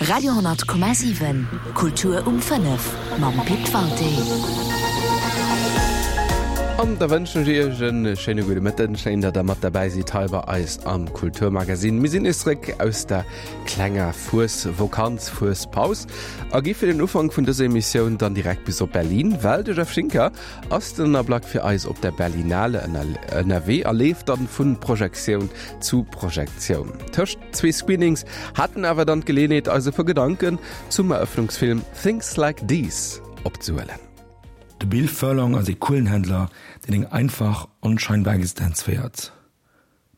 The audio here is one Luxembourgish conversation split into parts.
Radio 10,7 Kultur um 5 mam Pit Walté. An da wënschen ech Iech en schéine gudde Mëtten. Schéin, datt der mat derbäi sidd hei bei eis am Kulturmagazin. Mir sinn nees zréck aus der klenger Fuesvokanz, Fuespaus a gi fir den Ufank vun dëser Emissioun dann direkt bis op Berlin, well de Jeff Schinker ass den Ablack fir eis op der Berlinale ënnerwee a leeft dann vun Projektioun zu Projektioun. Tëscht zwee Screenings hat en awer dann d'Geleeënheet eis e puer Gedanken zum Erëffnungsfilm Things Like These opzehuelen. De Bill Furlong ass ee Kuelenhändler, deen eng einfach, onscheinbar Existenz féiert.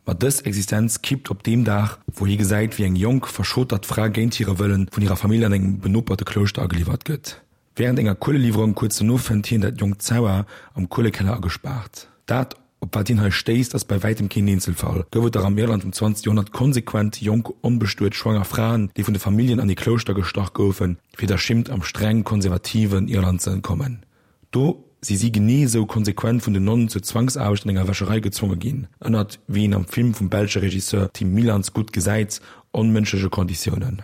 Ma dës Existenz kippt op deem Dag, wou hie gesäit, wéi eng jonk, verschotert Fra géint hire Wëllen vun hirer Famill an engem benoperte Klouschter ageliwwert gëtt. Wärend enger Kueleliwwerung kuerz dono fënnt hien dat jonkt Zauer am Kuelekeller agespaart. Dat, op wat hien hei stéisst, ass bei wäitem keen Eenzelfall. Gouf et dach am Irland vum 20. Joerhonnert konsequent jonk, onbestuet, schwanger Fraen, déi vun de Familljen an ee Klouschter gestach goufen, fir der Schimmt am streng konservativen Irland ze entkommen. Do si si genee esou konsequent vun den Nonnen zur Zwangsaarbecht an enger Wäscherei gezwonge ginn, ënnert, wéi een am Film vum belsche Regisseur Tim Milans gutt gesäit, onmënschleche Konditiounen.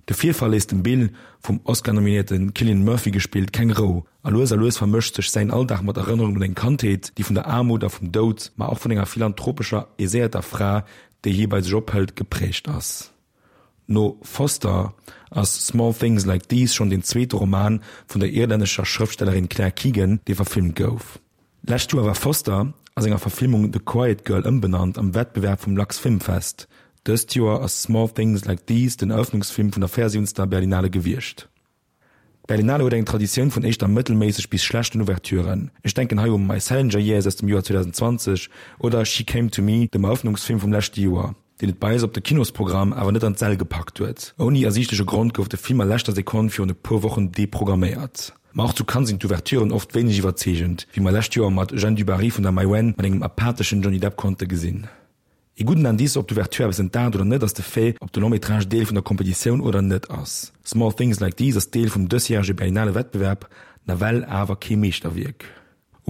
De Virfall léisst dem Bill, vum Oscar-nominéierte Cillian Murphy gespillt, keng Rou, a lues a lues vermëscht sech säin Alldag mat Erënnerungen un eng Kandheet, déi vun der Aarmut a vum Doud, ma och vun enger philanthropescher, aiséierter Fra, déi hie bei sech ophëlt, geprägt ass. No Foster ass Small Things Like These schonn deen zweete Roman vun der irlännescher Schrëftstellerin Claire Keegan, dee verfilmt gouf. Lescht Joer war Foster, a senger Verfilmung The Quiet Girl ëmbenannt, am Wettbewerb vum Lux Film Fest. Dëst Joer ass Small Things Like These den Erëffnungsfilm vun der 74. Berlinale gewiescht. D'Berlinale huet eng Traditioun vun éischter mëttelméisseg bis schlechten Ouverturen. Ech denken hei u My Salinger Years aus dem Joer 2020 oder She Came to Me, dem Erëffnungsfilm vum leschte Joer, deen et bei eis op de Kinosprogramm awer net an d'Säll gepackt huet. Ouni ersiichtleche Grond gouf de Film a leschter Sekonn virun e puer Wochen deprogramméiert. Ma och zu Cannes sinn d'Ouverturen oft wéineg iwwerzeegend, wéi mer lescht Joer mat Jeanne du Barry vun der Maïwenn mat engem apatheschen Johnny Depp konnte gesinn. Ee gudden Indice, ob d'Ouverture eppes entdaacht oder net, ass de Fait, ob de Long-métrage Deel vun der Kompetitioun oder net ass. Small Things Like These ass Deel vum dësjärege Berlinale Wettbewerb, nawell awer kee Meeschterwierk.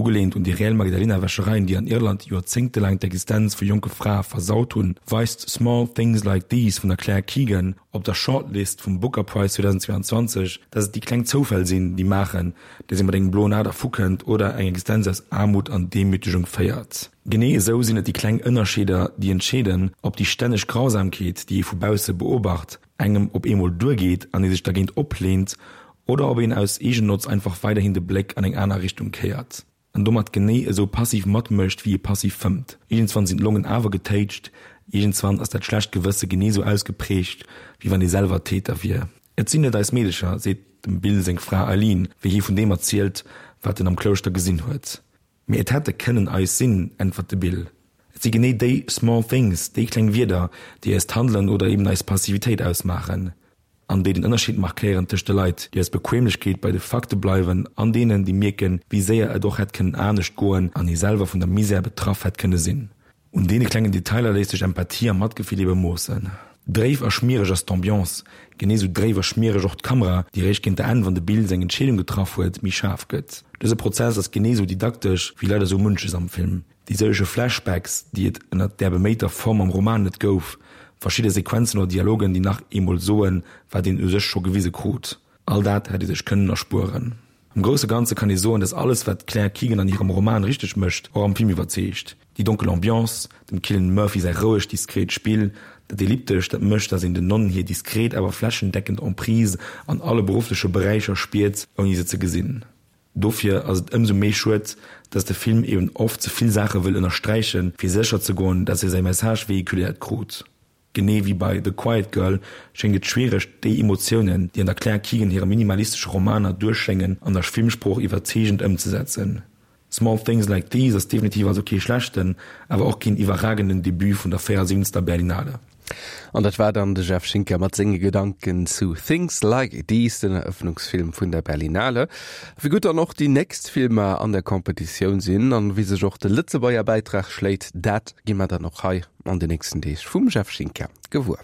Ugeleent un déi reell Magdalena-Wäschereien, déi an Irland joerzéngtelaang d'Existenz vu jonke Frae versaut hunn, weist Small Things Like These vun der Claire Keegan op der Shortlist vum Booker Prize 2022, dass et déi kleng Zoufäll sinn, déi maachen, dass ee mat engem bloen A dervukënnt oder eng Existenz aus Aarmut an Demütegung féiert. Genee esou sinn et déi kleng Ënnerscheeder, déi entscheeden, ob déi stänneg Grausamkeet, déi ee vu bausse beobacht, engem op eemol duergeet an ee sech dergéint opleent, oder ob een aus Eegennotz einfach weiderhin de Bléck an eng aner Richtung kéiert an domat genee esou passiv matmécht, wéi ee passiv fëmmt. Iergendswann sinn d'Longen awer getéitscht, iergendswann ass dat schlecht Gewësse genee esou ausgeprägt, wéi wann ee selwer Täter wier. Et sinn net eis Meedecher, seet dem Bill seng Fra Eileen, wéi hie vun deem erzielt, wat en am Klouschter gesinn huet. Mee et hätte kënnen eis sinn, äntwert de Bill. Et si genee déi small things, déi kleng Wierder, déi eist Handelen oder eben eis Passivitéit ausmaachen an déi den Ënnerscheed markéieren tëscht de Leit, déi aus Bequemlechkeet bei de Fakte bleiwen an deenen, déi mierken, wéi séier et och hätt kënnen anescht goen an ee selwer vun der Misär betraff hätt kënne sinn. Un deene klengen Detailer léisst sech Empathie a Matgefill ebe moossen. Dréif a schmiereg ass d'Ambiance, genee sou dréif a schmiereg och d'Kamera, déi réischt géint der Enn, wann de Bill seng Entscheedung getraff huet, méi schaarf gëtt. Dëse Prozess ass genee sou didaktesch wéi leider sou munches am Film. Déi sëllege Flashbacks, déi et ënnert där beméiter Form am Roman net gouf, verschidde Sequenzen oder Dialogen, déi nach eemol soen, wat een u sech scho gewise krut, all dat hätt ee sech kënnen erspueren. Am grousse Ganze kann ee soen, dass alles, wat d'Claire Keegan an hirem Roman richteg mécht, och am Film iwwerzeegt. Déi donkel Ambiance, dem Cillian Murphy säi rouegt, diskret Spill, dat Elliptescht, dat mécht, dass een den Nonnen hir diskret, awer flächendeckend Emprise an alle beruffleche Beräicher spiert, ouni se ze gesinn. Dofir ass et ëmsou méi schued, dass de Film eben oft ze vill Saache wëll ënnersträichen, fir sécher ze goen, dass e säi Message vehiculéiert krut. Genee wéi bei The Quiet Girl schéngt et schwiereg, déi Emotiounen, déi an der Claire Keegan hire minimalistesche Romaner duerchschéngen, an der Filmsprooch iwwerzeegend ëmzesetzen. Small Things Like These ass definitiv also kee schlechten, awer och keen iwwerragenden Debut vun der 74. Berlinale. An dat war dann de Jeff Schinker mat senge Gedanken zu Things Like These, den Erëffnungsfilm vun der Berlinale. Wéi gutt dann och déi nächst Filmer an der Competitioun sinn an wéi sech och de Lëtzebuerger Bäitrag schléit, dat gi mer dann och hei an de nächsten Deeg vum Jeff Schinker gewuer.